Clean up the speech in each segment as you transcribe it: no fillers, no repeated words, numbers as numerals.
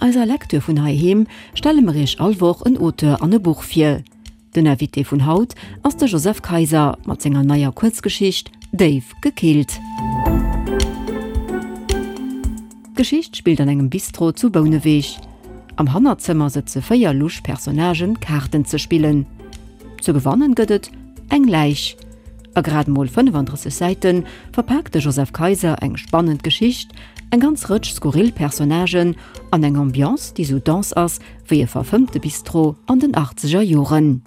eiser Lecture vun heiheem stelle mer iech all Woch en Auteur an e Buch vir. Den Invité vun haut ass de Joseph Kayser mat senger neier Kuerzgeschicht Déif gekillt. D'Geschicht spillt an engem Bistro zu Bouneweg. Am Hannerzëmmer sëtze 4 lusch Personnagen Kaarten ze spillen. Ze gewannen gëtt et eng Läich. A grad mol 35 Säite verpaakt de Joseph Kayser eng spannend Geschicht, eng ganz Rëtsch skurril Personnagen an eng Ambiance, déi sou dense ass wéi e verfëmmte Bistro an den achtzeger Joren.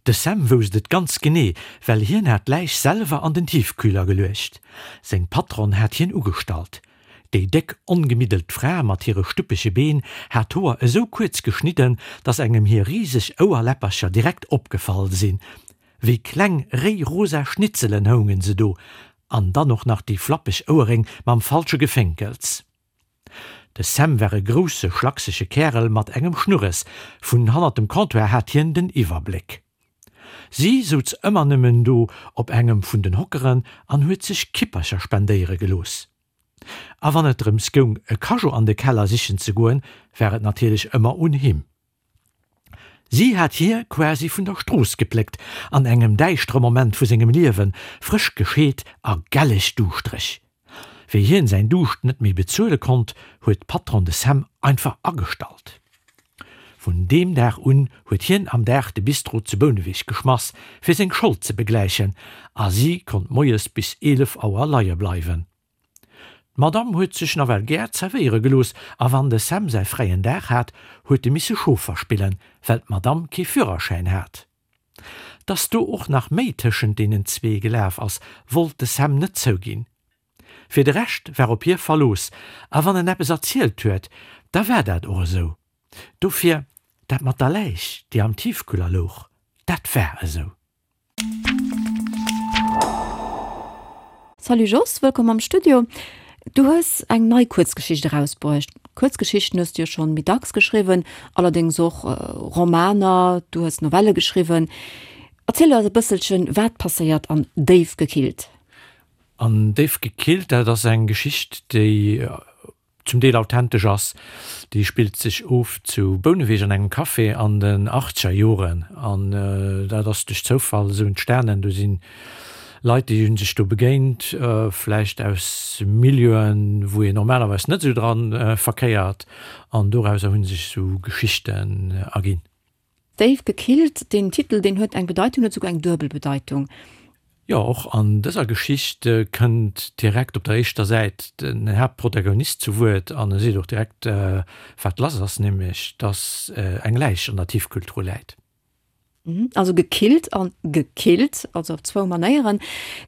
De Sam wousst et ganz genee, well hien hat d'Läich selwer an den Tiefkühler geluecht. Seng Patronn hat hien ugestallt. Déi déck, ongemiddelt Fra mat hire stuppege Been hat d'Hoer esou kuerz geschnidden, dass engem hir riseg Ouerläppercher direkt opgefall sinn. Wéi kleng, réi rosa Schnitzelen houngen se do. An dann och nach déi flappeg Ouerréng mam falsche Gefénkels. De Sam war e grousse, schlaksege Kärel mat engem Schnurres. Vun hannert dem Comptoir hat hien den Iwwerbléck. Si souz ëmmer nëmmen do op engem vun den Hockeren an huet sech Kippercher spendéiere gelooss. A wann et drëms goung, e Cageot an de Keller sichen ze goen, war et natierlech ëmmer un him. Si hat hie quasi vun der Strooss gepléckt, an engem däischtere Moment vu sengem Liewen, frësch gescheet a gelleg duuschtereg. Wéi hien säin Duuscht net méi bezuele konnt, huet d'Patronne de Sam einfach agestallt. Vun deem Dag un huet hien am Dag de Bistro zu Bouneweg geschmass, fir seng Schold ze begläichen, a si konnt moies bis 11 Auer leie bleiwen. D'Madame huet sech nawell gär zerwéiere gelooss, a wann de Sam säi fräien Dag hat, huet e misse Chauffer spillen, well d'Madame kee Führerschäin hat. Dass do och nach méi tëschent deenen zwee gelaf ass, wollt de Sam net zouginn. Fir de Rescht war op hie Verlooss, a wann en eppes erzielt huet, da war dat och esou. Dofir, dat mat der Läich, déi am Tiefkühler louch, dat war esou. Salut Jos, wëllkomm am Studio. Du hues eng nei Kuerzgeschicht erausbruecht. Kuerzgeschichten hues du jo schonn méi dacks geschriwwen, allerdéngs och Romaner, du hues Novelle geschriwwen. Erziel eis e bësselchen, wat passéiert an Déif gekillt? An Déif gekillt, dat ass eng Geschicht, déi zum Deel authentesch ass. Déi spillt sech of zu Bouneweg an engem Café an den achtzeger Joren. An dat ass duerch Zoufall esou entstanen. Do si Leit, déi hu sech do begéint, vläicht aus Milieuen, wou een normalerweis net esou dra verkéiert. An dorauser hu sech esou Geschichten erginn. Déif gekillt, deen Titel, deen huet eng Bedeitung, huet souguer eng duebel Bedeitung. Jo, och an dëser Geschicht kënnt direkt op der éischter Säit den Haaptprotagonist zu Wuert an e seet och direkt, wat lass ass, nämlech dass eng Läich an der Tiefkühltruh läit. Also gekillt an gekillt, also op zwou Manéieren.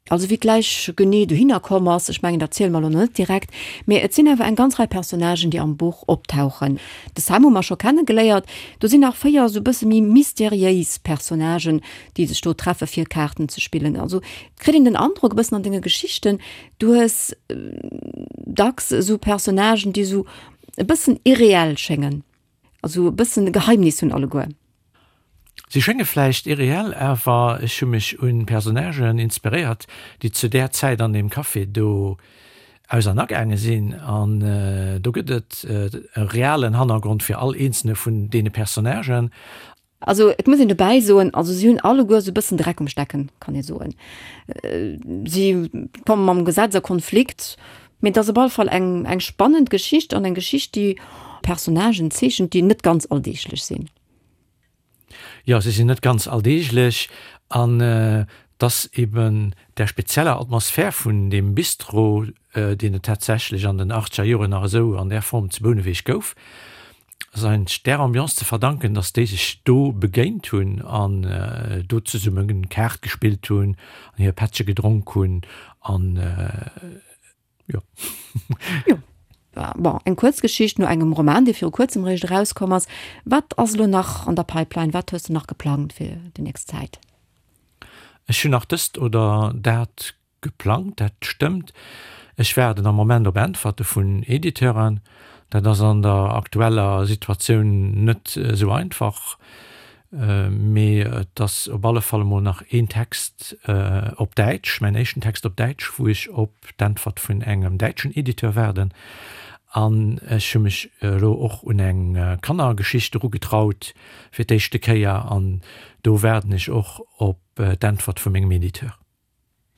Also wéi d'Läich genee dohinner komm ass, ech mengen dat ziele mer elo net direkt, mee et sinn awer eng ganz Rei Personnagen, déi am Buch optauchen. De Sam hu mer scho kenne geléiert. Do sinn nach 4 esou e bësse méi mysteriéis Personnagen, déi sech do treffe fir Kaarten ze spillen. Also et kritt een den Androck e bëssen an denge Geschichten, du hues dacks esou Personnagen, déi esou e bëssen irreell schéngen, also e bëssen e Geheimnis hunn alleguer. Si schénge vläicht irreell, awer ech hu mech un Personnagen inspiréiert, déi zu där Zäit an deem Café do aus an agaange sinn. An do gëtt et e realen Hannergrond fir all eenzelne vun deene Personnagen. Also et muss een dobäi soen, also si hunn alleguer esou e bëssen Dreck um Stecken, kann ee soen. Si komme mam Gesetz a Konflikt, mee et ass op alle Fall eng eng spannend Geschicht an eng Geschicht, déi Personnagen zeechent, déi net ganz alldeeglech sinn. Jo, se sinn net ganz alldeeglech an et ass eben där spezieller Atmosphär vun deem Bistro, deen et tatsächlech an den achtzeger Joren nach esou an där Form zu Bouneweg gouf, ass eigentlech där Ambiance ze verdanken, dass déi sech do begéint hunn an do zesumme Kaart gespillt hunn an hir Pättche gedronk hunn an. Jo. Jo. Bon, eng Kuerzgeschicht no engem Roman, dee viru kuerzem eréischt erauskomm ass. Wat ass elo nach an der Pipeline? Wat hues de nach geplangt fir déi nächst Zäit? Ech hunn nach dëst oder dat geplangt, dat stëmmt. Ech waarden am Moment op Äntwerte vun Editeuren. Dat ass an der aktueller Situatioun net esou einfach. Mee et ass op alle Fall emol nach een Text op Däitsch, mäin éischten Text op Däitsch, wou ech op d'Äntwert vun engem däitschen Editeur waarden. An ech hu mech elo och un eng Kannergeschicht erugetraut fir d'éischte Kéier an do waarden ech och op d'Äntwert vu mengem Editeur.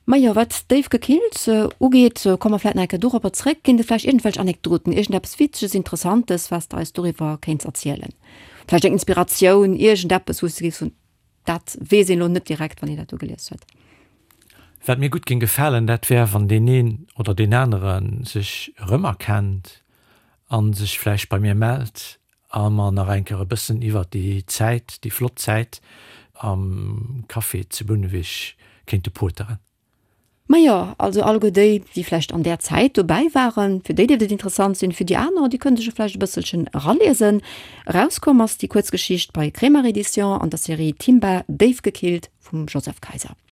Majo, wat déif gekillt ugeet, komme mer vläit nach eng Kéier doropper zréck. Ginn et vläicht iergendwelch Anekdoten, iergendeppes Witzeges, Interessantes, wat s de eis doriwwer kéints erzielen? Vläicht eng Inspiratioun, iergendeppes, wou s de géifs soen, dat weess een elo net direkt, wann een dat do gelies huet? Wat mir gutt géing gefalen, dat wär, wann deen een oder deen anere sech erëmerkennt a sech vläicht bei mir mellt a mer nach eng Kéier e bëssen iwwert déi Zäit, déi flott Zäit am Café zu Bouneweg kéinte poteren. Majo, also alleguer déi, déi vläicht an där Zäit dobäi waren, fir déi dierft et interessant sinn, fir déi aner, déi kënne sech jo vläicht e bësselchen eraliesen. Erauskomm ass déi Kuerzgeschicht bei Kremer Edition an der Serie Timba, déif gekillt vum Joseph Kayser.